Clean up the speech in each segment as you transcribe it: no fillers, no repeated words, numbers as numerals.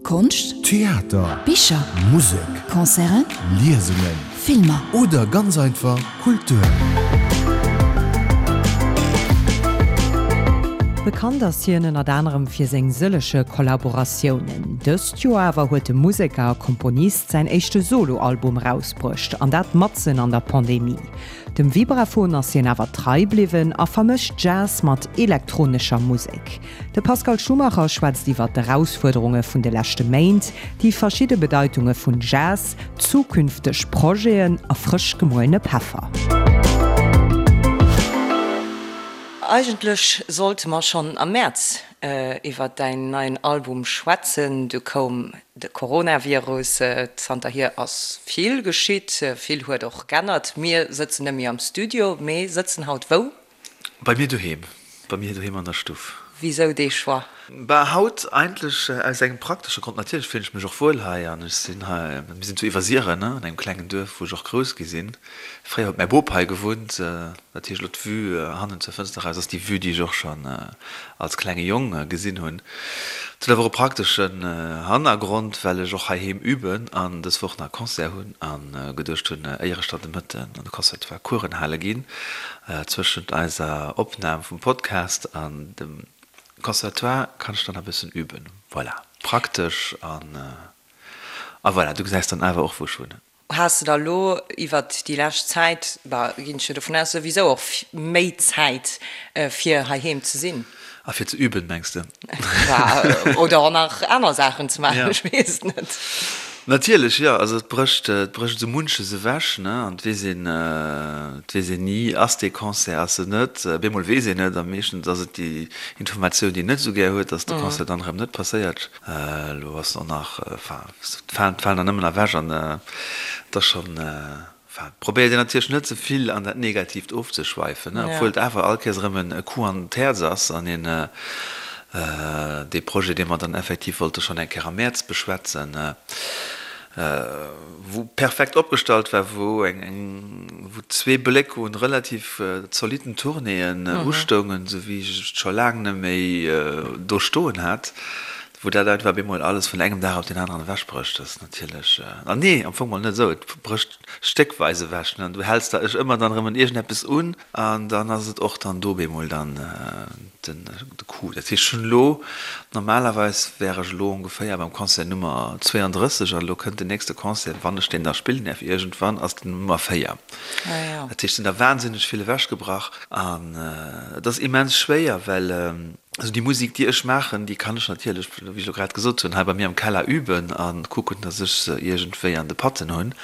Konscht, Theater, Bicher, Musek, Concerten, Liesungen, Filmer. Oder ganz einfach Kultur. Bekannt ass hien ënnert anerem fir seng sëllege Kollaboratiounen. Dëst Joer awer huet de Museker a Komponist säin éischte Solo-Album erausbruecht, an dat matzen an der Pandemie. Dem Vibraphon ass hien awer trei bliwwen a vermëscht Jazz mat elektronescher Musek. De Pascal Schumacher schwätzt iwwer d'Erausfuerderunge vun de leschte Méint, déi verschidde Bedeitunge vun Jazz, zukünfteg Projeten a frësch gemuelene Peffer. Eigentlech sollte mer schonn am Mäerz iwwer däin neien Album schwätzen, du koum de Coronavirus. Zanterhier ass vill geschitt, vill huet och g'ännert. Mir sëtzen net méi am Studio, mee sëtzen haut wou? Bei mir doheem, bei mir doheem an der Stuff. Wisou dee Choix? Bah, haut eigentlech aus engem praktesche Grond. Natierlech fillen ech mech och wuel hei an ech sinn hei, mir sinn zu Iwwersiren, an engem klengen Duerf, wou ech och grouss gi sinn. Fréier huet mäi Bop hei gewunnt. Dat heescht, elo d'Vue hannen zur Fënster eraus ass déi Vue, déi ech och schonn als klenge Jong gesinn hunn. Et huet awer och e prakteschen Hannergrond, well ech och heiheem üben an dës Woch nach e Concert hunn a geduecht hunn, éier ech dann de Mëtten an de Conservatoire Coursen hale ginn, Zwëschent eiser Opnahm vum Podcast an dem Conservatoire kann ech dann e bëssen üben. Voilà, praktesch an a voilà, du gesäis dann awer och wou ech wunnen. Has de da lo iwwert déi lescht Zäit, bah, ginn ech jo dovun aus, souwisou och méi Zäit fir heiheem ze sinn? A fir ze üben, mengs de? Oder och nach aner Saachen ze maachen, ech weess et net. Natierlech, jo. Also et brécht, et brécht esou munches ewech, ne? An et weess een, et weess een ni, ass dee Concert, ass en net? Bemol weess een et, a meeschtens ass et déi Informatioun, déi een net esou gär huet, dass de Concert dann erëm net passéiert. Elo ass en och nach, enfin, et falen, et falen der nëmmen ewech an et ass schonn, Enfin, probéiert een natierlech net ze vill an dat Negatiivt ofzeschweifen, obwuel et awer all Kéiers erëm e Coup an d'Häerz ass an een dee Projet, dee mer dann effektiv wollte schonn eng Kéier am Mäerz beschwätzen, wou perfekt opgestallt war, wou eng, wou zwee Bléck un relativ zolitten Tournéeën ustoungen, esou wéi ech et scho laang net méi do stoen hat. Wou dat einfach bemol alles vun engem Dag op deen aneren ewechbrécht, ass natierlech, an nee, am Fong mol net esou, et brécht stéckweis ewech, ne, an du häls der ech ëmmer dann erëm un iergendeppes un, an dann ass et och dann do bemol dann den de Coup. Dat heescht, ech hunn elo, normalerweis wär ech elo ongeféier beim Concert Nummer 32, an elo kënnt den nächste Concert, wann ech deen da spillen däerf iergendwann, ass den Nummer 4. Dat heescht, et sinn der wahnsinneg vill ewechgebrach, an et ass immens schwéier, well. Also déi Musik, déi ech maachen, déi kann ech natierlech, wéi ech elo grad gesot hunn, hei bei mir am Keller üben a kucken, datt ech se iergendwéi an de Patten hunn.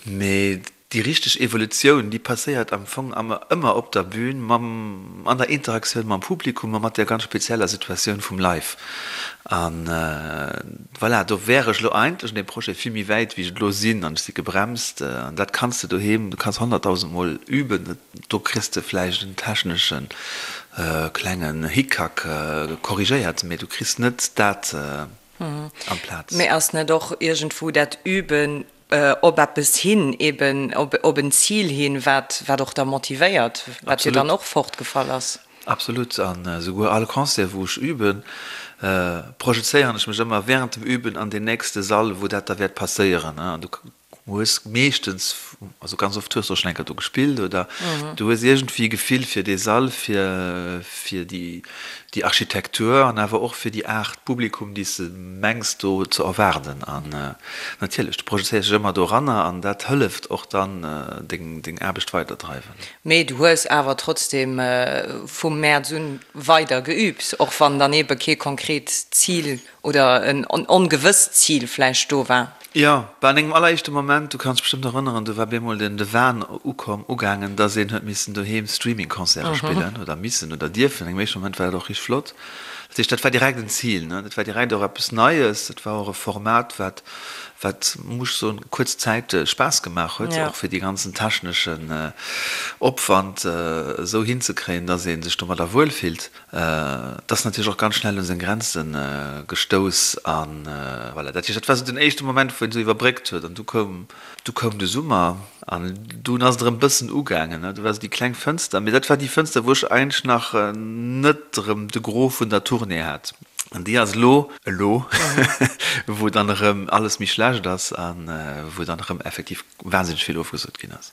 Mee déi richteg Evolutioun, déi passéiert am Fong ëmmer op der Bühn, mam, an der Interaktioun mam Publikum a mat där ganz spezieller Situatioun vum Live. A voilà, do wär ech elo eigentlech an deem Projet vill méi wäit, wéi ech et elo sinn, an ech si gebremst. An dat kanns de doheem, du kanns honnertdausendmol üben, Do kriss de vläicht en technesche klengen Hickhack korrigéiert, mee du kriss net dat amplaz. Mee ass net och iergendwou dat Üben op eppes hin, eben op en Zil hin, wat wat och da motivéiert, wat jo dann och fortgefall ass? Absolut. An esouguer all Concert, wou ech üben, projezéieren ech mech ëmmer während dem Üben an deen nächste Sall, wou dat da wäert passéieren. An du hues meeschtens, also ganz oft hues du och schon eng Kéier do gespillt oder du hues iergendwéi e Gefill fir dee Sall, fir fir déi déi Architektur an awer och fir déi Aart Publikum, déi s de mengs do ze erwaarden. An natierlech, du projezéiers dech ëmmer doranner an dat hëlleft och dann deng deng Aarbecht weiderdreiwen. Mee du hues awer trotzdem vum Mäerz un weider geübt, och wann dann eebe kee konkret Zil Oder en ongewësst Zil vläicht do war. Jo, bah an engem alleréischte Moment, du kanns dech bestëmmt erënneren, do war bemol den de Wahn ukomm, ugaangen, dass een huet missen doheem Streaming-Concerte spillen, oder missen oder dierfen. An engem éischte Moment war dat och richteg flott. Dat heescht, dat war direkt en Zil, ne? Dat war direkt och eppes Neies, dat war och e Format, wat, wat, muss ech soen, kuerz Zäit Spaass gemaach huet, och fir dee ganzen techneschen Opwand esou hinzekréien, dass ee sech domadder wuelfillt. Et ass natierlech och ganz schnell un seng Grenze gestouss an voilà. Dat heescht, dat war esou den éischte Moment, wou een esou iwwerbréckt huet an du koum, du koum de Summer an dunn ass et erëm bëssen ugaangen, ne. Do war esou déi kleng Fënster, mee dat war déi Fënster, wou ech eigentlech nach net erëm de Gros vun der Tournée hat. An déi ass elo, elo wou dann erëm alles méi schlecht ass a wou dann erëm effektiv wahnsinneg vill ofgesot ginn ass.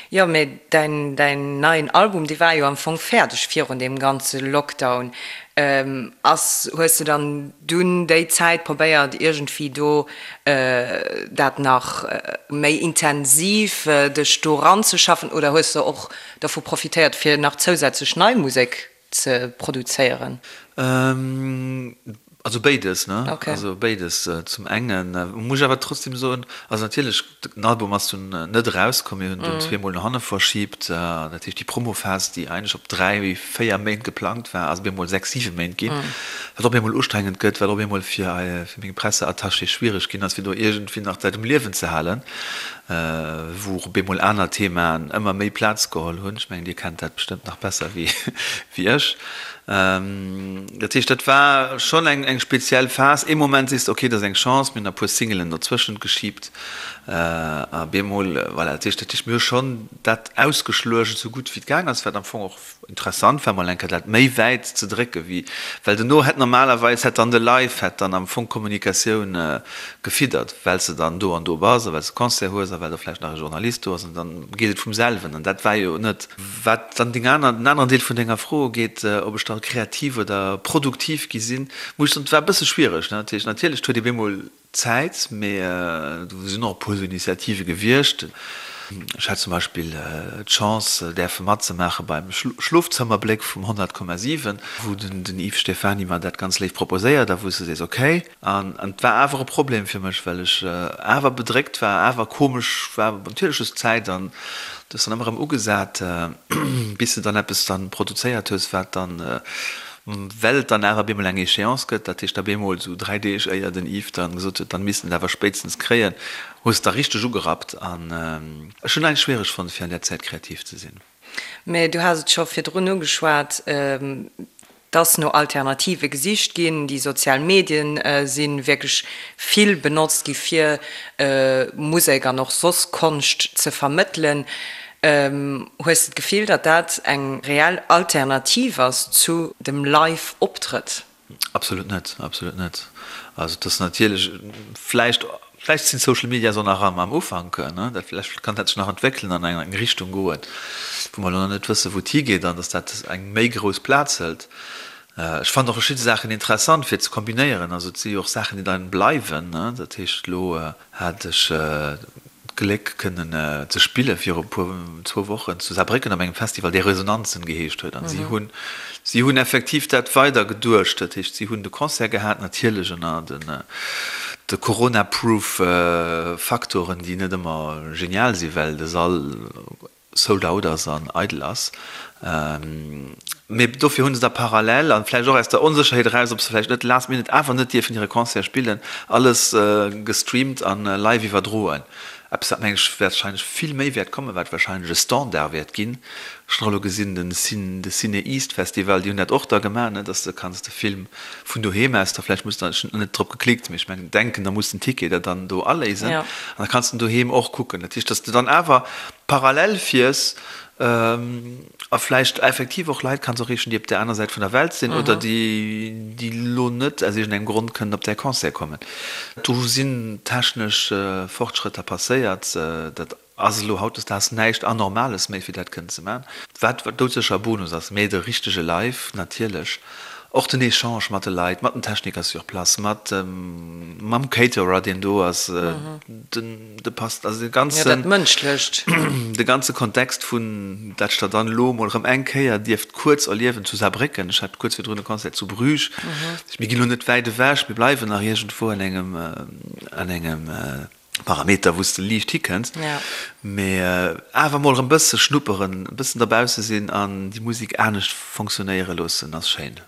Jo, mee däin, däin neien Album, dee war jo am Fong fäerdeg virun deem ganze Lockdown. Ass, hues de dann dunn déi Zäit probéiert iergendwéi do dat nach méi intensiv dech do ranzeschaffen oder hues de och dovu profitéiert fir nach zousätzlech nei Musek ze produzéieren? Also béides, ne? Okay. Also béides. Zum engen muss ech awer trotzdem soen, also natierlech, den Album ass dunn net erauskomm, mir hunn dunn zweemol no hanne verschibt. Dat heescht, déi Promophas, déi eigentlech op dräi, véier Méint geplangt war, ass op eemol sechs, siwe Méint ginn, wat op eemol ustrengend gëtt, wat op eemol fir fir meng Presseattachée schwiereg ginn ass, fir do iergendwéi nach d'Leit um Liewen ze halen, wou och op eemol aner Themaen ëmmer méi Plaz geholl hunn. Ech mengen, Dir kennt dat bestëmmt nach besser wéi ech. Dat heescht, dat war schonn eng speziell Phas. Ee Moment sees de, okay, dat ass eng Chance, mir hunn e puer Singelen dozwëschent geschiebt a bemol, voilà. Dat heescht, dat heescht, mir hu schonn dat ausgeschluecht, esou gutt wéi et gaang ass, wat am Fong och interessant war, mol eng Kéier dat méi wäit ze drécke wéi, well dono hätt normalerweis hätt dann de Live hätt dann am Fong d'Kommunikatioun gefiddert, well s de dann do an do bass a well s de Concert hues a well do vläicht nach e Journalist do ass an dann geet et vum selwen an dat war jo net. Wat dann deng aner, den aneren Deel vun denger Fro ugeet, ob ech da kreativ oder produktiv gi sinn, muss ech soen, et war e bësse schwiereg. Dat heescht, natierlech, et huet ee bemol Zäit, mee do sinn och e puer esou Initiative gewiescht. Ech hat zum Beispill d'Chance, däerfe matzemaache beim Schlofzëmmerbléck vum 100,7, wou den Yves Stephany mer dat ganz léif proposéiert a wou s de sees, okay. An et war awer e Problem fir mech, well ech awer bedréckt war, awer komesch war. Natierlech hues de Zäit an du hues dann ëmmer erëm ugesat, bis de dann eppes dann produzéiert hues, wat dann, well et dann awer op eemol eng Échéance gëtt, dat heescht op eemol esou 3 Deeg éier den Yves dann gesot huet, dann misst en et awer spéitstens kréien, hues de da richteg ugerappt. An ech hunn eigentlech schwiereg fonnt, fir an där Zäit kreativ ze sinn. Mä du has et scho virdrun ugeschwat, dass no Alternative gesicht ginn. Déi sozial Medien si wierklech vill benotzt gi fir Musek an och soss Konscht ze vermëttelen. Hues de d'Gefill, datt dat eng reell Alternativ ass zu dem Live-Optrëtt? Absolut net, absolut net. Also et ass natierlech vläicht, vläicht sinn d'Social Medias och nach am am Ufank, ne, dat vläicht kann dat sech nach entwéckelen an eng eng Richtung goen, wou mer elo nach net wëssen, wou et higeet an datt dat eng méi grouss Plaz hëlt. Ech fannen och verschidde Saachen interessant fir ze kombinéieren. Also et si jo och Saachen, déi dann bleiwen, ne. Dat heescht elo hat ech d'Gléck kënnen ze spille viru puer, zwou Wochen zu Saarbrécken op engem Festival, dee Resonanzen geheescht huet. An si hunn, si hunn effektiv dat weider geduecht. Dat heescht, si hunn de Concert gehat, natierlech ënner den, de Corona-proof Faktoren, déi net ëmmer genial sinn, well de Sall sold out ass an eidel ass. Mee dofir hu se da parallel, an vläicht och aus der Onsécherheet eraus, ob se vläicht net last minute awer net dierfen hire Concert spillen, alles gestreamt an live iwwerdroen. Eppes wat, meng ech, warscheinlech vill méi wäert kommen, wat warscheinlech e Standard wäert ginn. Ech hunn och elo gesinn, den de Ciné East Festival, déi hunn dat och da gemaach, ne, dass de kanns de Film vun doheem aus da vläicht muss, ech hunn net drop geklickt, mee ech mengen, denken, da muss den Ticket der dann do aléisen an da kanns de en doheem och kucken. Dat heescht, dass de dann awer parallel fiers a vläicht effektiv och Leit kanns erreechen, déi op där aner Säit vun der Welt sinn oder déi, déi elo net aus iergendengem Grond kënnen op däi Concert kommen. Do sinn technesch Fortschrëtter passéiert. Dat ass elo hautdesdaags näischt Anormales méi, fir dat kënnen ze maachen. Wat doudsécher e Bonus ass, mee de richtege Live natierlech. Och den Echange mat de Leit, mat den Techniker sur place, mat mam Caterer, deen do ass, den de passt, also de ganzen, jo, dat Mënschlecht. De ganze Kontext vun dat ech der dann elo emol erëm eng Kéier dierft kuerz erliewen zu Saarbrécken. Ech hat kuerz virdrun e Concert zu Bruges. Mir ginn elo net wäit ewech, mir bleiwen nach iergendwou an engem, an engem Parameter, wou s de liicht hikënns, mee awer mol erëm bësse schnupperen, e bëssen derbausse sinn an déi Musek anescht fonctionnéiere loossen, ass schéin.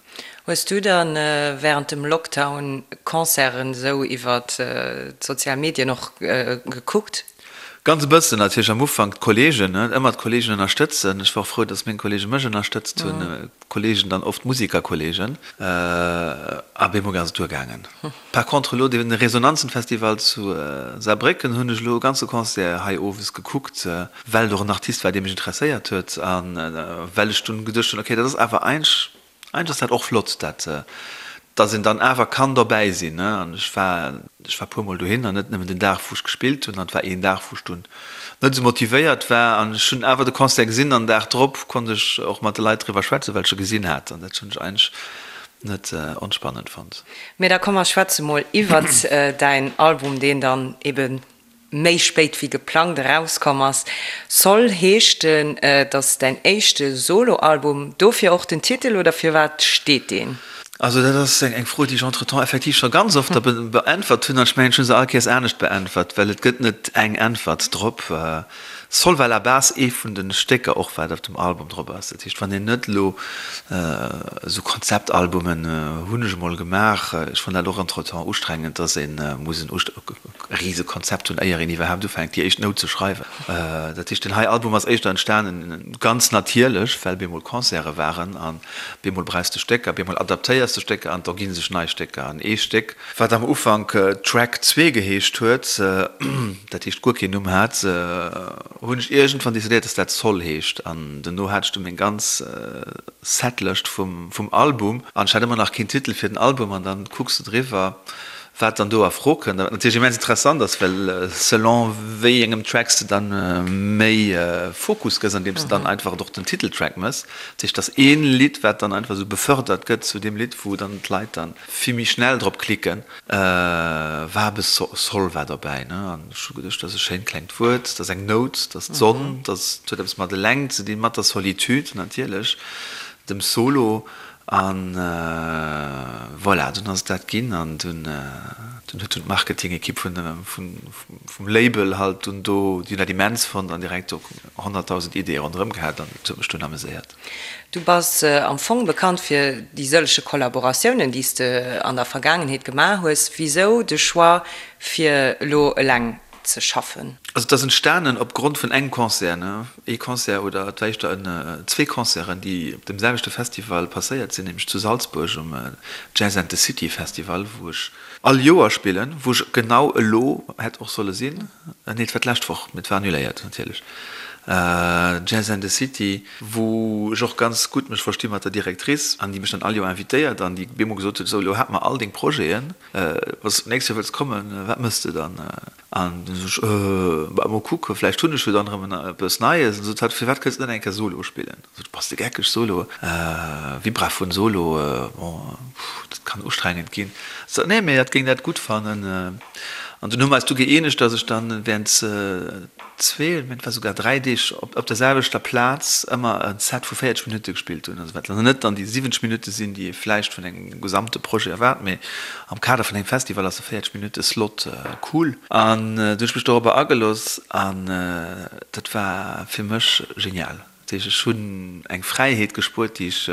Hues du dann während dem Lockdown Concerten esou iwwert d'sozial Medien och gekuckt? Ganz e bëssen, natierlech am Ufank d'Kollegen, ëmmer d'Kollegen ënnerstëtzen. Ech war och frou, dass meng Kollege mech ënnerstëtzt hunn. Kollegen, dann oft Musikerkollegen, a bemol ass et duergaangen. Par contre elo dee Resonanzenfestival zu Saarbrécken hunn ech elo e ganze Concert hei owes gekuckt, well et och en Artist war, dee mech interesséiert huet a well ech dunn geduecht hunn, okay, dat ass awer eigentlech, eigentlech ass dat och flott, dat. Dass een dann awer kann dobäi sinn, ne. An ech war, ech war puermol dohin an net nëmmen den Dag wou ech gespillt hunn, an et war een Dag wou ech dunn net esou motivéiert war an ech hunn awer de Concert gesinn an den Dag drop konnt ech och mat de Leit driwwer schwätzen, well ech e gesinn hat an dat hunn ech eigentlech net onspannend fonnt. Mee da komm mer schwätze mol iwwert däin Album, deen dann eben méi spéit wéi geplangt erauskomm ass. Sol heescht en, et ass däin éischte Solo-Album, dofir och den Titel oder firwat steet deen? Also dat ass eng Fro, déi ech entretemps effektiv scho ganz oft da beäntwert hunn an ech mengen, ech hu se all Kéiers anescht beäntwert, well et gëtt net eng Äntwert drop. Sol war la base ee vun de Stécker och wat op dem Album drop ass. Dat heescht, wann een net elo esou Konzeptalbumen hunn ech emol gemaach, ech fannen dat och entretemps ustrengend, dass ee muss en rise Konzept hunn, éier een iwwerhaapt ufänkt déi éischt Nout ze schreiwen. Dat heescht, deen hei Album ass éischter entstanen ganz natierlech, well bemol Concerte waren an bemol brauchs de Stécker, bemol adaptéiers de Stécker an et ergi sech nei Stécker. An ee Stéck, wat am Ufank Track 2 geheescht huet, dat heescht guer keen Numm hat, hunn ech iergendwann decidéiert, dass dat Sol heescht. An dono hat ech du meng ganz Setlëscht vum Album an ech hat ëmmer nach keen Titel fir den Album an dann kucks de driwwer, wat dann do a Fro kënnt a wat natierlech immens interessant ass, well selon wéi engem Track s de dann méi Fokus gëss, andeems de dann einfach och den Titeltrack mëss. Dat heescht, dass ee Lidd, wat dann einfach esou befördert gëtt zu deem Lidd, wou dann d'Leit dann vill méi schnell drop klicken, war e bësse Sol war dobäi, ne? An ech hu geduecht, dat ass e schéint klengt Wuert, dat ass eng Nout, dat ass d'Sonn, dat huet eppes mat eleng ze dinn, mat der Solitude natierlech, dem Solo. An voilà, dunn ass et dat ginn an dunn dunn huet dunn d'Marketing-Ekipp vun vum Label halt dunn do, déi hunn dat immens fonnt an direkt do 100.000 Ideeë ronderëm gehat an dat huet mech dunn ameséiert. Du bass am Fong bekannt fir déi sëllege Kollaboratiounen, déi s de an der Vergaangenheet gemaach hues. Wisou de Choix fir elo eleng ze schaffen? Also et ass entstanen op Grond vun engem Concert, ne? Ee Concert oder et war éischter en, zwee Concerten, déi op dem selwechte Festival passéiert sinn, nämlech zu Salzburg um Jazz and the City Festival, wou ech all Joer spillen, wou ech genau elo hätt och solle sinn, nee et war d'lescht Woch, mee et war annuléiert natierlech, Jazz and the City, wou ech och ganz gutt mech versti mat der Directrice an déi mech dann all Joer invitéiert an déi bemol gesot huet, esou elo hate mer all deng Projeten, Wann s de d'nächst Joer wëlls kommen, wat mëss de dann? An du sot ech, Äh, bah, mol kucken, vläicht hunn ech jo dann erëm eppes Neies. An sot hatt, Firwat kënns de net eng Kéier Solo spillen? Sot ech, Bass de geckeg, Solo? Vibraphon Solo, bon, dat kann ustrengend ginn. Sot hatt, Nee, mee hatt géing dat gutt fannen. An dunn hu mer eis du gëeenegt, dass ech dann während zwee, mä et war souguer dräi Deeg op der selwechter Plaz ëmmer e Set vu 40 Minutte gespillt hunn. Also wat dann net dann déi 70 Minutte sinn, déi ee vläicht vun engem gesamte Projet erwaart, mee am Kader vun engem Festival ass e 40 Minutte Slot cool. An du hunn ech mech dorobber agelooss an dat war fir mech genial. Dat heescht, ech hunn eng Fräiheet gespuert, déi ech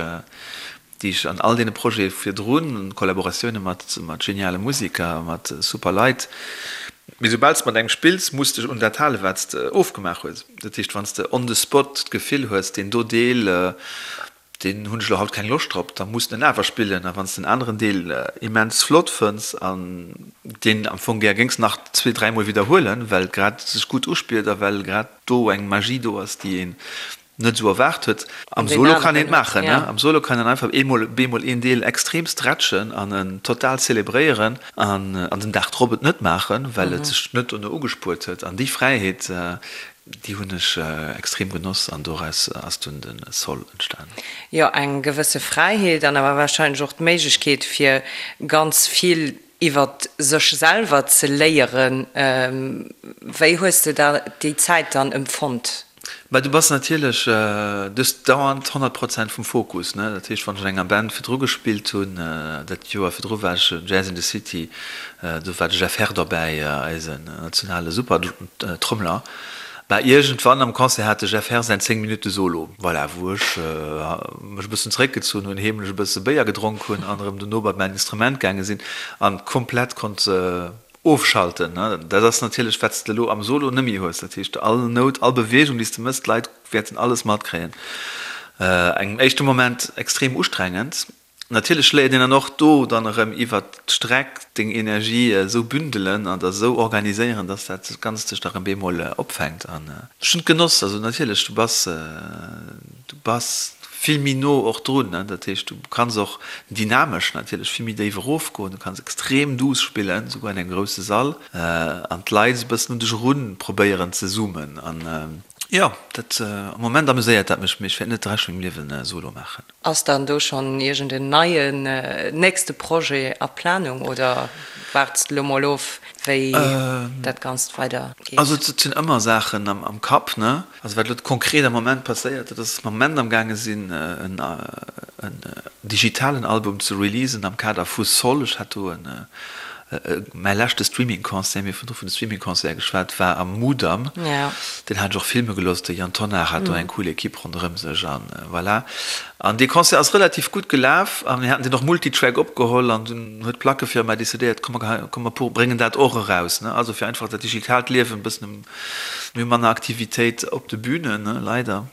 déi ech an all deene Projete virdrun, Kollaboratioune mat geniale Museker, mat super Leit, mee soubal s de mat engem spills, muss dech un dat halen, wat s de ofgemaach hues. Dat heescht, wann s de on the spot d'Gefill hues, deen do Deel, deen hunn ech elo haut keng Loscht drop, da muss de en awer spillen. A wann s de en aneren Deel immens flott fënns an deen am Fong gär géings nach zwee, dräimol widderhuelen, well grad sech gutt uspillt a well grad do eng Magie do ass, déi een net esou erwaart huet. Am Solo kann een et maachen, ne? Am Solo kann een einfach eemol bemol een Deel extrem stretchen an en total zelebréieren an an den Dag drop et net maachen, well et sech net dono ugespuert huet. An déi Fräiheet, déi hunn ech extrem genoss an doraus ass dunn de Sol entstanen. Jo, eng gewësse Fräiheet an awer warscheinlech och d'Méiglechkeet fir ganz vill iwwert sech selwer ze léieren. Wéi hues de da déi Zäit dann empfonnt? Bah, du bass natierlech, du hues dauernd 100 Prozent vum Fokus, ne? Dat heescht, wann ech an enger Band virdru gespillt hunn, dat Joer virdru war ech Jazz in the City, do war de Jeff Herr dobäi, eisen nationale Super-Trommeler. Bah, iergendwann am Concert hat de Jeff Herr säin 10 Minutte Solo, voilà, wou ech mech e bëssen zeréckgezunn hunn, heemlech e bësse Béier gedronk hunn an erëm dono bei mäin Instrument gaange sinn an komplett konnt ofschalten. Dat ass natierlech, wat s de elo am Solo net méi hues. Dat heescht, all Nout, all Beweegung, déi s de mëss, d'Leit wäerten alles matkréien. Engem éischte Moment extrem ustrengend. Natierlech léiert een dann och do dann erëm iwwert d'Streck deng Energie esou bündelen an der esou organiséieren, dass dat Ganzt sech da erëm bemol opfänkt. An ech hunn et genoss. Also natierlech, du bass. Du bass vill méi no och drun, ne? Dat heescht, du kanns och dynamesch natierlech vill méi déif erofgoen, du kanns extrem duuss spillen, souguer an engem grousse Sall, an d'Leit esou e bëssen un dech erun probéieren ze zoomen. An jo, dat, am Moment ameséiert dat mech, mee ech wäert net de Rescht vun mengem Liewen Solo maachen. Ass dann do schonn iergend en neien nächste Projet a Planung oder waarts de lo mol of, wéi dat Ganzt weider geet? Also et sinn ëmmer Saachen am Kapp, ne? Also wat elo konkret am Moment passéiert, dat ass, dass mer am Moment am gaange sinn en digitalen Album ze releasen am Kader vu Sol. Ech hat do en, mäi leschte Streaming-Concert, mir hu virdru vun de Streaming-Concerte geschwat, war am Mudam. Deen hat ech och filme gelooss, de Yann Tonnar hat do eng cool Equipe ronderëm sech an voilà. An dee Concert ass relativ gutt gelaf a mir haten deen och multitrack opgeholl an dunn huet d'Plackefirma decidéiert, komm mer, komm mer bréngen dat och eraus, ne. Also fir einfach dat digitaalt Liewen e bëssen Mir hu manner Aktivitéit op de Bünen, leider,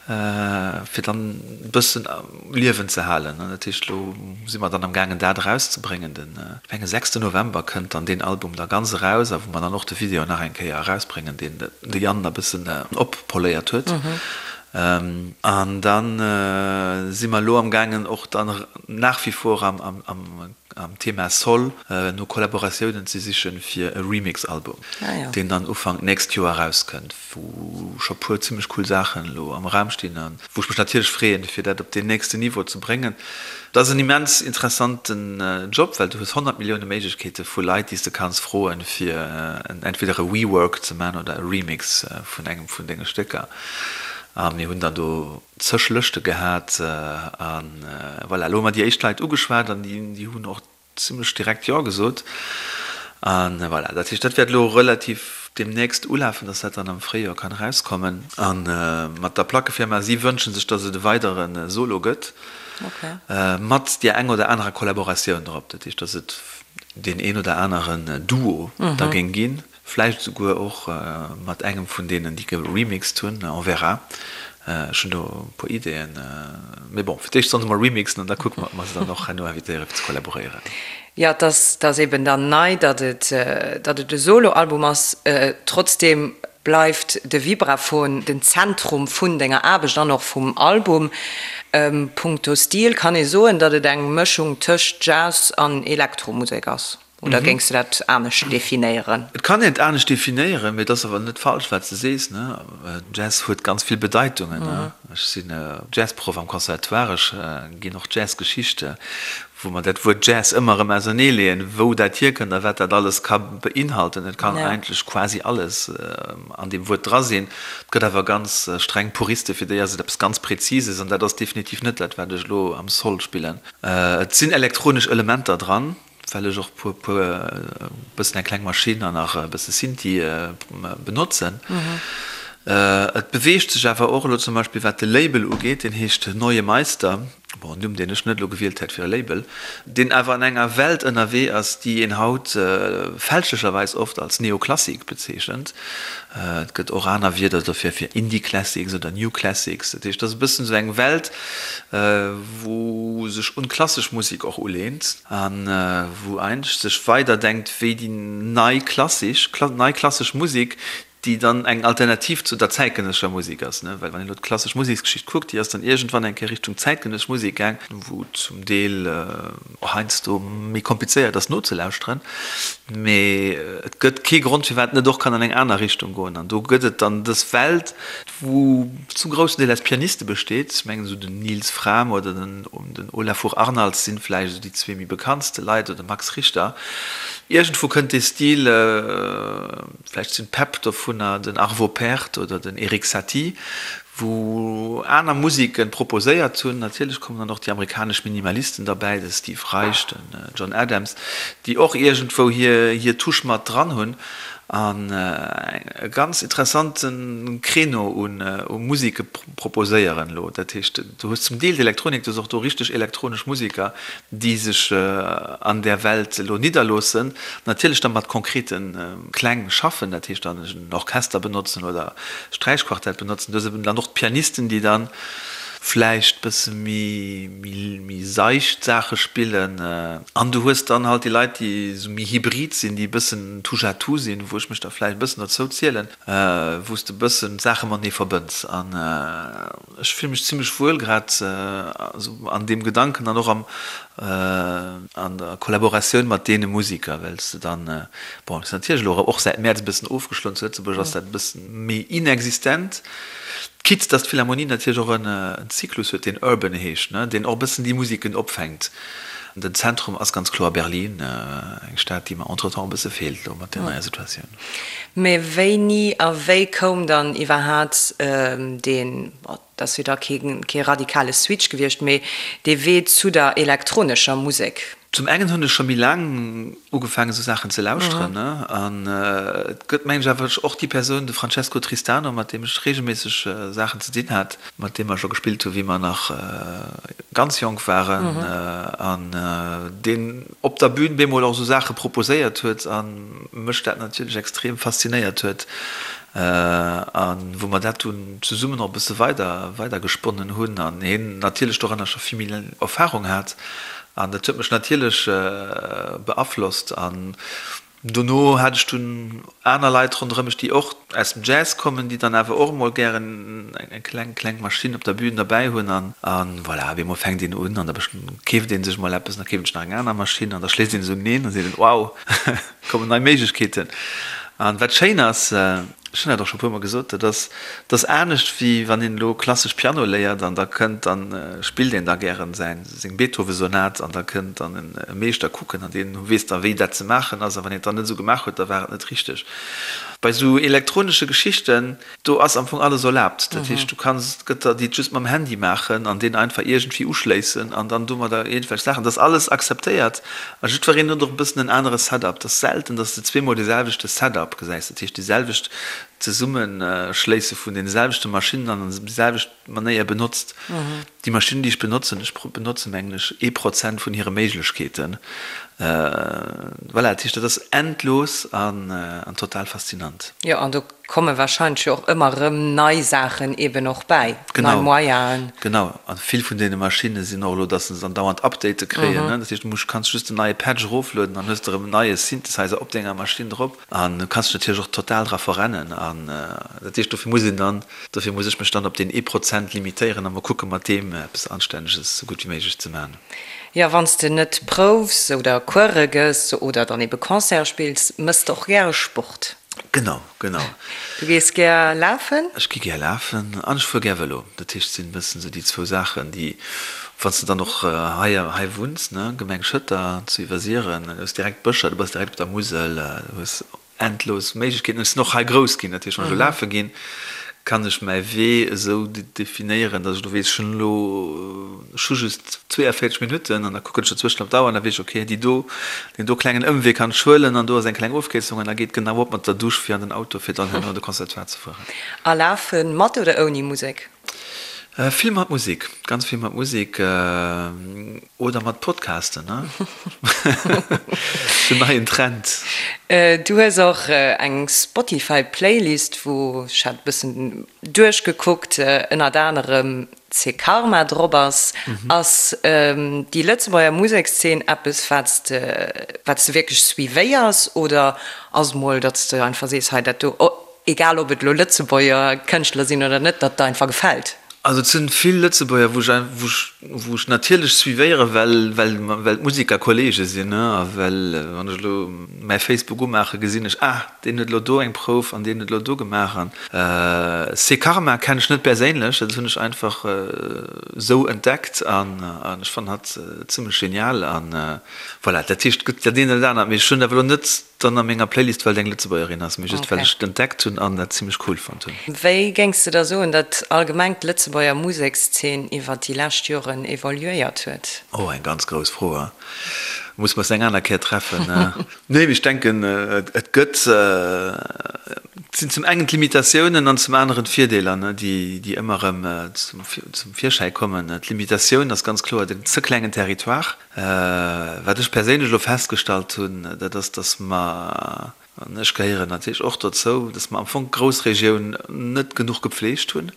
fir dann e bëssen um Liewen ze halen. Dat heescht, elo si mer dann am gaangen, dat erauszebréngen. Den, ech mengen, sechsten November kënnt dann deen Album da ganz eraus a wou mer dann och de Video nach eng Kéier erausbréngen, deen de Yann e bëssen oppoléiert huet. An da si mer elo am gaangen, och dann nach wie vor am am Thema Soul no Kollaboratiounen ze sichen fir e Remix-Album, deen dann Ufank nächst Joer erauskënnt, wou scho puer zimmlech cool Saachen elo am Raum stinn an wou ech mech natierlech freeën, fir dat op deen nächsten Niveau ze bréngen. Et ass en immens interessanten Job, well du hues 100 Millioune Méiglechkeete vu Leit, déi s de kanns froen, fir entweder e Rework ze man oder e Remix vun engem vun denge Stécker. A mir hunn dann do zeg Lëschte gehat a voilà, elo hu mer déi éischt Leit ugeschwat an déi hunn och zimlech direkt Jo gesot. A voilà, dat heescht, dat wäert elo relativ deemnächst ulafen, dass dat dann am Fréijoer kann erauskommen. A mat der Plackefirma, si wënsche sech, dass et e weidere Solo gëtt, mat där eng oder anerer Kollaboratioun drop. Dat heescht, dass et deen een oder aneren Duo da géing ginn. Vläicht esouguer och mat engem vun deenen, déi geremixed hunn, on verra. Ech hunn do e puer Ideeën. Mee bon, fir d'éischt sollen se mol remixen an da kucke mer, ob mer se dann och herno invitéiere fir ze kollaboréieren. Jo, et ass, et ass eben dann nei, datt et, datt et e Soloalbum ass. Trotzdeem bleift de Vibraphon den Zentrum vun denger Aarbecht an och vum Album. Punkto Stil kann ee soen, datt et eng Mëschung tëscht Jazz an Elektromusek ass. Oder géings du dat anescht definéieren? Et kann een et anescht definéieren, mee et ass awer net falsch, wat s de sees. Jazz huet ganz vill Bedeitungen. Ech sinn Jazzproff am Conservatoire, ech ginn och Jazzgeschichte, wou mer dat Wuert Jazz ëmmer erëm auserneeleeën, wou dat hierkënnt a wat dat alles ka beinhalten. Et kann eigentlech quasi alles an deem Wuert dra sinn. Et gëtt awer ganz streng Puriste, fir déi ass et eppes ganz Präzises an dat ass definitiv net dat, wat ech elo am Sol spillen. Et sinn elektronesch Elementer dran. Well ech och puer puer e bëssen eng kleng Maschinn an nach e bësse Synthi benotzen. Et beweegt sech awer och elo zum Beispill wat de Label ugeet, deen heescht Neue Meister, bon en Numm deen ech net elo gewielt hätt fir e Label, deen awer an enger Welt ënnerwee ass, déi een haut fälschlecherweis oft als Neoklassik bezeechent. Et gëtt och aner Wierder dofir, fir Indie Classics oder New Classics. Dat heescht, et ass e bëssen esou eng Welt, wou sech un d'klassesch Musek och uleent a wou eigentlech sech weiderdenkt wéi déi nei klassisch, nei klassesch Musek, déi dann eng Alternativ zu der zäitgenëssescher Musek ass. Well wann een elo d'klassesch Museksgeschicht kuckt, déi ass dann iergendwann eng Kéier Richtung zäitgenëssesch Musek gaang, wou zum Deel heiansdo méi komplizéiert ass nozelauschteren, mee et gëtt kee Grond firwat et net och kann an eng aner Richtung goen. An do gëtt et dann dës Welt, wou zum groussen Deel aus Pianiste besteet, ech mengen esou den Nils Frahm oder den Olafur Arnalds sinn vläicht esou déi zwee méi bekanntste Leit, oder de Max Richter. Iergendwou kënnt dee Stil, vläicht sinn d'Päpp dovunner den Arvo Pärt oder den Erik Satie, wou aner Musiken proposéiert hunn. Natierlech kommen dann och déi amerikanesch Minimalisten derbäi, de Steve Reich, den John Adams, déi och iergendwou hir Touche mat dran hunn an e ganz interessante Créneau u Musike proposéieren elo. Dat heescht, du hues zum Deel d'Elektronik, du hues och do richteg elektronesch Musiker, déi sech an där Welt elo nidderloossen, natierlech da mat konkrete Kläng schaffen, dat heescht dann en Orchester benotzen oder Sträichquartett benotzen. Du hues eben dann och d'Pianisten, déi dann. vläicht bësse méi, méi seicht Saache spillen. An du hues dann halt déi Leit, déi esou méi hybrid sinn, déi e bëssen touche-à-tout sinn, wou ech mech da vläicht e bëssen dozou zielen, wou s de e bëssen d'Saache matenee verbënns. An ech fille mech zimlech wuel grad esou an deem Gedanken an och am, an der Kollaboratioun mat deene Musiker, well s de dann, bon, et ass natierlech elo och säit Mäerz e bëssen ofgeschloen, zu Lëtzebuerg ass dat e bëssen méi inexistent, quitte dass d'Philharmonie natierlech och en Zyklus huet, deen Urban heescht, ne, deen och e bëssen déi Musiken opfänkt. Den Zentrum ass ganz kloer Berlin, eng Stad, déi mer entretemps e bësse feelt elo mat där neier Situatioun. Mä wéini a wéi koum dann iwwerhaat deen, bon, et ass jo da kee radikale Switch gewiescht, mee dee Wee zu der elektronescher Musek? Zum engen hunn ech scho méi laang ugefaangen esou Saachen ze lauschteren, ne, an et gëtt mengen ech awer och déi Persoun, de Francesco Tristano, mat deem ech reegelméisseg Saachen ze dinn hat, mat deem mer scho gespillt hu wéi mer nach ganz jonk waren, an deen op der Bühn bemol och esou Saache proposéiert huet a mech dat natierlech extrem faszinéiert huet a wou mer dat dunn zesummen och e bësse weider weider gesponnen hunn an hien natierlech doranner scho vill méi Erfahrung hat. An dat huet mech natierlech beaflosst. An dono hat ech dunn aner Leit ronderëm mech, déi och aus dem Jazz kommen, déi dann awer och emol gären eng kleng, kleng Maschinn op der Bühn derbäi hunn. An voilà, op eemol fänkt een un an da keeft ee sech mol eppes an da keeft een sech nach eng aner Maschinn an da schléisst een se uneen an seet een, Wow, kommen nei Méiglechkeeten. An wat schéin ass, Ech hunn dat och scho puer mol gesot, dat ass, dat ass anescht wéi wann een elo klassesch Piano léiert an da kënnt, dann spillt een da gären säin, seng Beethoven-Sonat an da kënnt dann e Meeschter kucken an deen weess da wéi dat ze maachen ass a wann een et dann net esou gemaach huet, da war et net richteg. Bei esou elektronesche Geschichten, do ass am Fong alles erlaabt. Dat heescht, du kanns, et gëtt der, déi et just mam Handy maachen an deen einfach iergendwéi uschléissen an dann domadder iergendwelch Saachen, dat ass alles akzeptéiert a jiddwereen huet och e bëssen en anere Setup. Et ass selten, datt s de zweemol dee selwechte Setup gesäis. Dat heescht déi selwecht Zesummeschléisse vun deene selwechte Maschinnen an déi selwecht Manéier benotzt. Déi Maschinnen, déi ech benotzen, ech benotze mengen ech ee Prozent vun hire Méiglechkeeten. Voilà, dat heescht, dat ass endlos an total faszinant. Jo, an do komme wahrscheinlech jo och ëmmer erëm nei Saachen eben och bäi, nei Moyenen. Genau, a vill vun deene Maschinne sinn och elo, datt se andauernd Update kréien. Dat heescht, du muss, kanns just en neie Patch eroflueden an hues de erëm en neie Synthesizer op denger Maschinn drop. An du kanns dech natierlech och total dra verrennen. An dat heescht, dofir muss een dann, dofir muss ech mech dann op deen ee Prozent limitéieren a mol kucke mat deem eppes Anstänneges esou gutt wéi méiglech ze maachen. Jo, wann s de net proufs oder Course gëss oder dann ebe Concerte spills, mëss de och gäre Sport. Genau, genau. Du gees gär lafen? Ech gi gär lafen an ech fuer gär Vëlo. Dat heescht, et sinn e bëssen esou déi zwou Saachen, déi, wann s de dann och hei, hei wunns, ne, Gemeng Schëtter zu Iwwersiren, du hues direkt Bëscher, du bass direkt op der Musel, du hues endlos Méiglechkeeten. Ech sinn och hei grouss ginn, dat heescht, wann ech elo lafe ginn, kann ech mäi Wee esou definéieren, datt ech elo weess, ech hunn elo, ech hu just 42 Minutten an da kucken ech dozwëschen op d'Auer an da weess ech, okay, déi do, deen do klengen Ëmwee kann ech huelen an do ass eng kleng Ofkierzung an da geet genau op mat der Dusch fir an den Auto, fir dann herno an de Conservatoire ze fueren. A lafe mat oder ouni Musek? Vill mat Musek, ganz vill mat Musek oder mat Podcasten, ne? Den neien Trend. Du hues och eng Spotify Playlist, wou, ech hat e bëssen duerchgekuckt, ënnert anerem C'est Karma drop ass. Ass déi Lëtzebuerger Musekszeen eppes, wat s de, wat s de wierklech suivéiers oder ass mol, datt s de einfach sees, hei dat do, egal ob et elo Lëtzebuerger Kënschtler sinn oder net, datt der einfach gefält? Also et sinn vill Lëtzebuerger, wou ech, wou ech, wou ech natierlech suivéieren, well, well, well d'Musiker Kollege sinn, ne, a well wann ech elo mäi Facebook umaachen, gesinn ech, ah, Deen huet elo do eng Prouf an deen huet elo do gemaach an C'est Karma kennen ech net perséinlech, dat hunn ech einfach esou entdeckt an ech fannen hatt zimmlech genial an voilà. Dat heescht et gëtt dat eent oder dat anert, mee ech hunn et awer elo net dann a menger Playlist well et eng Lëtzebuergerin ass, mee just well ech et entdeckt hunn an dat zimmlech cool fonnt hunn. Wéi géings de da soen, datt allgemeng d'Lëtzebuerger Musekszeen iwwer déi lescht Joren evoluéiert huet? Oh, eng ganz grouss Fro, muss mer eis eng aner Kéier treffen. Nee, mee ech denken, et gëtt, et sinn zum engen d'Limitatiounen an zum aneren d'Virdeeler, déi ëmmer erëm zum Virschäi kommen. D'Limitatioun ass ganz kloer den ze klengen Territoire. Wat ech perséinlech elo festgestallt hunn, dat ass, datt mer, an ech gehéieren natierlech och dozou, datt mer am Fong d'Groussregioun net genuch gepflegt hunn.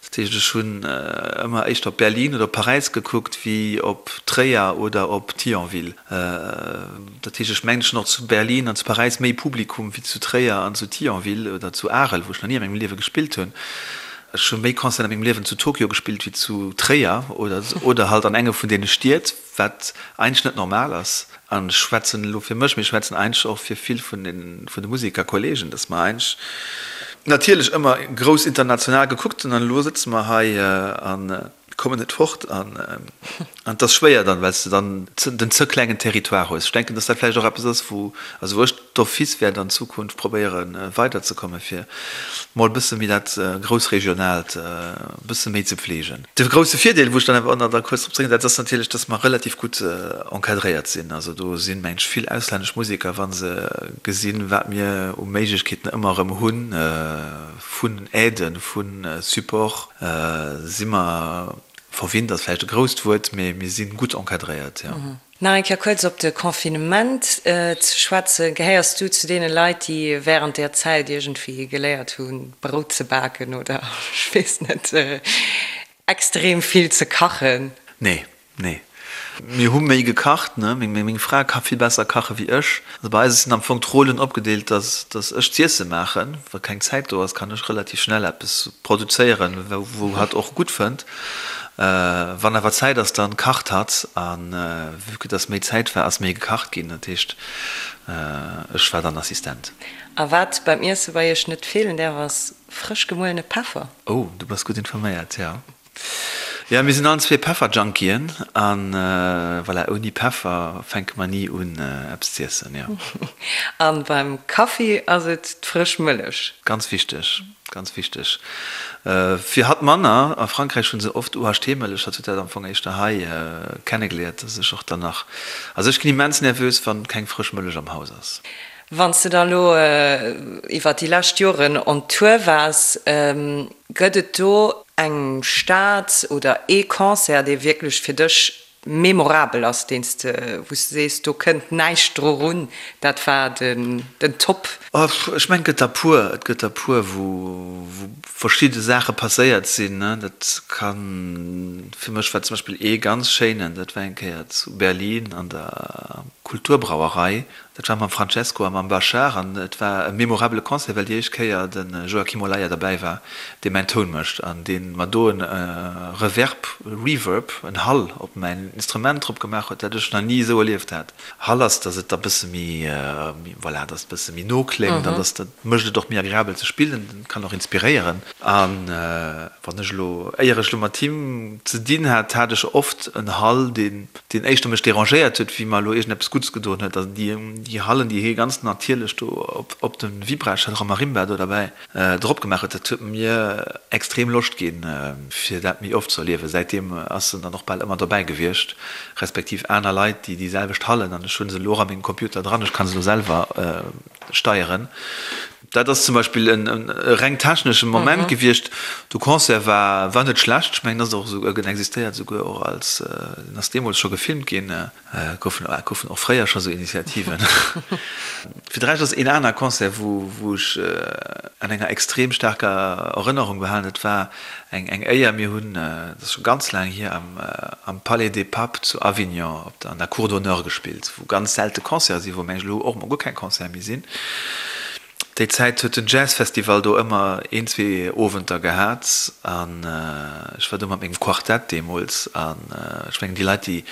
Dat heescht, ech hunn ëmmer éischter op Berlin oder op Paräis gekuckt wéi op Tréier oder op Thionville. Dat heescht, ech mengen, ech hunn och zu Berlin an zu Paräis méi Publikum wéi zu Tréier an zu Thionville oder zu Arel, wou ech nach ni a mengem Liewe gespillt hunn. Ech hu méi Concerten a mengem Liewen zu Tokio gespillt wéi zu Tréier oder oder halt an enge vun deene Stied. Wat eigentlech net normal ass, an ech schwätzen elo fir mech, mee ech schwätzen eigentlech och fir vill vun den, vun de Musekerkollegen, dass mer eigentlech natierlech ëmmer grouss international gekuckt hunn an elo sëtze mer hei a kommen net fort an et ass schwéier dann, well s de dann den ze klengen Territoire hues. Ech denken, dass dat vläicht och eppes ass, wou, also wou ech d'office wäert an Zukunft probéieren weiderzekommen, fir mol e bësse méi dat Groussregionaalt e bësse méi ze pflegen. De grousse Virdeel, wou ech dann awer och nach da kuerz drop zréck, dat ass natierlech, dass mer relativ gutt encadréiert sinn. Also do sinn, meng ech, vill auslännesch Museker, wa se gesinn, wat mir u Méiglechkeeten ëmmer erëm hunn, vun Aiden, vu Support, si mer, verwinnt ass vläicht e grousst Wuert, mee mir si gutt encadréiert, jo. Nach eng Kéier kuerz op de Confinement ze schwätzen, Gehéiers du zu deene Leit, déi wärend där Zäit iergendwéi geléiert hunn, Brout ze baken oder, ech weess net, extrem vill ze kachen? Nee, nee. Mir hu méi gekacht, ne. Meng Fra ka vill besser kache wéi ech. Also bei eis sinn am Fong d'Rollen opgedeelt, dass dass ech d'Iesse maachen. Wa keng Zäit do ass, kann ech relativ schnell eppes produzéieren, wou hatt och gutt fënnt. Wann awer Zäit ass, dann kacht hatt. An vue que dass méi Zäit war, ass méi gekacht ginn. Dat heescht, ech war dann Assistent. A wat beim Iesse bei iech net feelen däerf, ass frësch gemuelene Peffer. Oh, du bass gutt informéiert, jo. Jo, mir sinn allen zwee Pefferjunkien. A voilà, ouni Peffer fänke mer ni un, eppes z'iessen, jo. A beim Kaffi ass et d'frësch Mëllech. Ganz wichteg. Ganz wichteg. Fir hatt manner. A Frankräich hu se oft UHT-Mëllech. Hatt huet dat am Fong éischter hei kennegeliert, dass ech och dann nach, also ech ginn immens nervös, wann keng frësch Mëllech am Haus ass. Wann s de da elo iwwer déi lescht Joren on Tour waars, gëtt et do eng Stad oder ee Concert, dee wierklech fir dech memorabel ass, deen s de, wou s de sees, do kënnt näischt dru run, dat war den Top? Ech mengen, et gëtt der puer. Et gëtt der puer, wou verschidde Saache passéiert sinn. Dat kann, fir mech war zum Beispill ee ganz schéinen, dat war eng Kéier zu Berlin an der Kulturbrauerei. Dat war mam Francesco a mam Bashar an et war e memorabele Concert, well déi éischt Kéier de Joaquim Olaya derbäi war, dee mäin Toun mécht an dee mer do e Reverb, Reverb, en Hall op mäin Instrument drop gemaach huet, dat ech nach ni esou erlieft hat. Hall ass, datt et da bësse méi, voilà, datt et bësse méi no kléngt an datt dat mécht et och méi agreabel ze spillen, kann och inspiréieren. A wann ech elo, éier ech elo mat him ze dinn hat, hat ech oft en Hall, deen deen éischter mech dérangéiert huet, wéi mer elo iergendeppes Guddes gedoen huet. Also déi, déi Hallen, déi hie ganz natierlech do op, op de Vibra, ech hat och e Marimba do derbäi, drop gemaach huet, dat huet mir extrem Loscht ginn, fir dat méi oft ze erliewen. Säitdeem ass en dann och bal ëmmer dobäi gewiescht, respektiv aner Leit, déi déi selwecht Hallen, an ech hu se elo och a mengem Computer dran, ech ka se elo selwer steieren. Dat ass zum Beispill en reng technesche Moment gewiescht. De Concert war war net schlecht. Ech mengen, ass och esou, en existéiert esouguer och als, en ass deemools scho gefilmt ginn. Goufen goufen och fréier scho sou Initiativen. Fir de Rescht ass een aner Concert, wou wou ech an enger extrem staarker Erënnerung behalen, dat war eng eng Éier, mir hunn, dat ass scho ganz laang hier, am am Palais des Papes zu Avignon op der an der Cour d'honneur gespillt, wou ganz selte Concerte sinn, wou mengen ech elo och mol guer keng Concerte méi sinn. Déi Zäit huet den Jazzfestival do ëmmer een, zwee Owenter gehat an ech war do mat mengem Quartett deemools an ech mengen déi Leit, déi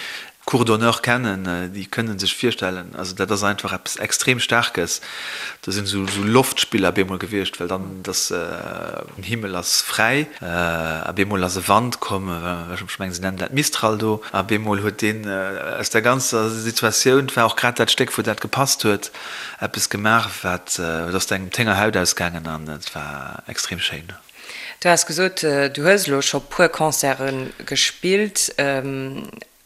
d'Cour d'honneur kennen, déi kënne sech virstellen, also dat ass einfach eppes extrem Staarkes. Do sinn esou Loftspiller bemol gewiescht, well dann dass den Himmel ass fräi a bemol ass e Wand komm, ech mengen se nennen dat Mistral do, a bemol huet deen aus der ganzer Situatioun, et war och grad dat Stéck wou dat gepasst huet, eppes gemaach wat, et ass engem d'Héngerhaut ausgaangen an et war extrem schéin. Du has gesot, du hues elo scho puer Concerte gespillt,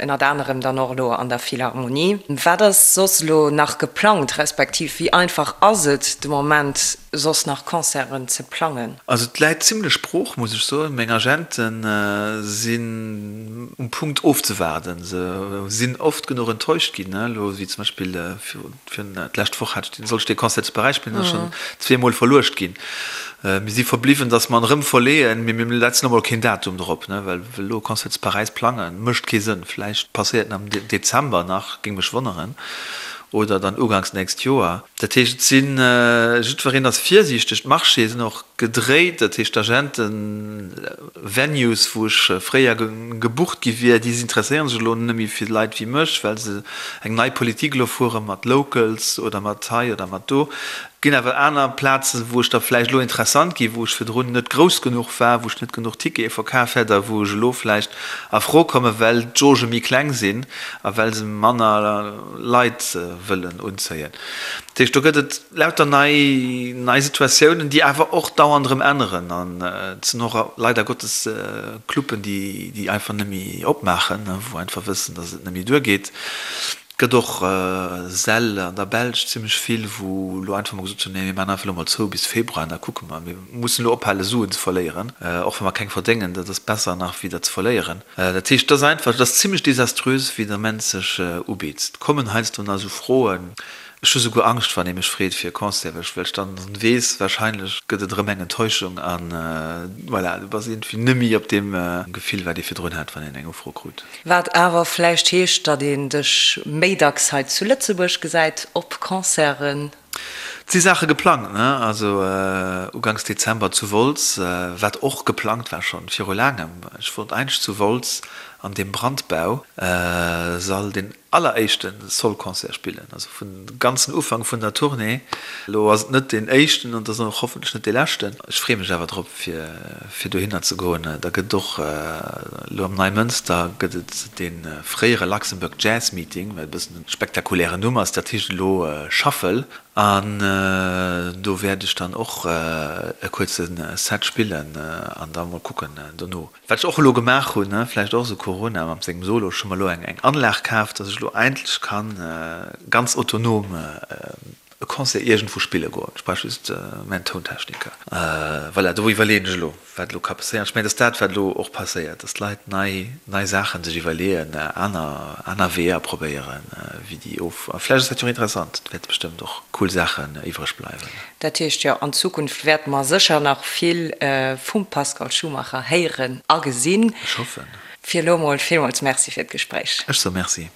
ënnert anerem dann och elo an der Philharmonie. Wat ass soss elo nach geplangt, respektiv wéi einfach ass et de Moment soss nach Concerten ze plangen? Also et läit zimlech brooch, muss ech soen. Meng Agente sinn um Punkt ofzewaarden. Se sinn oft genuch enttäuscht ginn, elo wéi zum Beispill virun d'lescht Woch hat ech, sollt ech dee Concert zu Paräis spillen, ass schonn zweemol verluecht ginn. Mir si verbliwwen, datt mer en erëm verleeën, mee mir setzen elo mol keen Datum drop, ne, well elo e Concert zu Paräis plangen, mécht kee Sënn. Vläicht passéiert en am Dezember nach, géing mech wonneren, oder dann uganks nächst Joer. Dat heescht, et sinn, jiddwereen ass virsiichteg, d'Marchéë sinn och gedréit, dat heescht d'Agenten, Venues, wou ech fréier gebucht gi wier, déi interesséiere sech elo net méi fir Leit wéi mech, well se eng nei Politik elo fuere mat Locals oder mat hei oder mat do. Et ginn awer aner Plazen, wou ech da vläicht elo interessant ginn, wou ech virdrun net grouss genuch war, wou ech net genuch Tickete verkaf hätt a wou ech elo vläicht a Fro kommen, well d'Jauge méi kleng sinn a well se manner Leit wëllen unzéien. Dat heescht, do gëtt et lauter nei, nei Situatiounen, déi awer och dauernd erëm änneren. An et sinn och leider Gottes Cluben, déi, déi einfach net méi opmaachen, wou einfach wëssen, datt et net méi duergeet. Et gëtt och Säll an der Belsch zimmlech vill, wou elo einfach mol gesot hunn, nee mir maachen einfach elo mol zou bis Februar an da kucke mer. Mir mussen elo ophale Suen ze verléieren, och wa mer keng verdéngen, dat ass besser nach wéi der ze verléieren. Dat heescht, et ass einfach, et ass zimmlech desaströs wéi den Ament sech ubitt. Et kommen heiansdo nach esou Froen, ech hu souguer Angscht wann ee mech freet fir e Concert, well ech well ech dann weess, wahrscheinlech gëtt et erëm eng Enttäuschung an voilà, du bass iergendwéi nëmmi op deem Gefill wat ee virdrun hat, wann een eng Ufro krut. Wat awer vläicht heescht, datt een dech méi dacks hei zu Lëtzebuerg gesäit op Concerten. Et si Saache geplangt, ne? Also uganks Dezember zu Wolz, wat och geplangt war schonn viru laangem. Ech wollt eigentlech zu Wolz an deem Brandbau Sall deen alleréischte Soul-Concert spillen, also vun ganzen Ufank vun der Tournée. Elo ass et net deen éischten an et ass och hoffentlech net dee leschten. Ech freeë mech awer drop fir fir dohinner ze goen. Da gëtt et och elo am Neimënster gëtt et dee fréiere Luxembourg Jazz Meeting, wat e bëssen e spektakulären Numm ass, dat heescht elo Shuffle. An do wäert ech dann och e kuerze Set spillen an da mol kucken dono. Wat ech och elo gemaach hunn, vläicht och esou Corona mat sengem Solo, ech hu mer elo eng Anlag kaf, dass ech elo endlech kann ganz autonom e Concert iergendwou spille goen. Ech brauch just mäin Tountechniker. Voilà, do iwwerleeën ech elo, wat elo ka passéieren. Ech mengen, et ass dat, wat elo och passéiert, dass d'Leit nei, nei Saache sech iwwerleeën, aner, aner Weeër probéieren, wéi déi of. A vläicht ass dat jo och interessant. Et wäerte bestëmmt och cool Saachen iwwreg bleiwen. Dat heescht, jo, an Zukunft wäerte mer sécher nach vill vum Pascal Schumacher héieren a gesinn. Ech hoffen. Fir elo mol villmools Merci fir d'Gespréich. Ech soe Merci.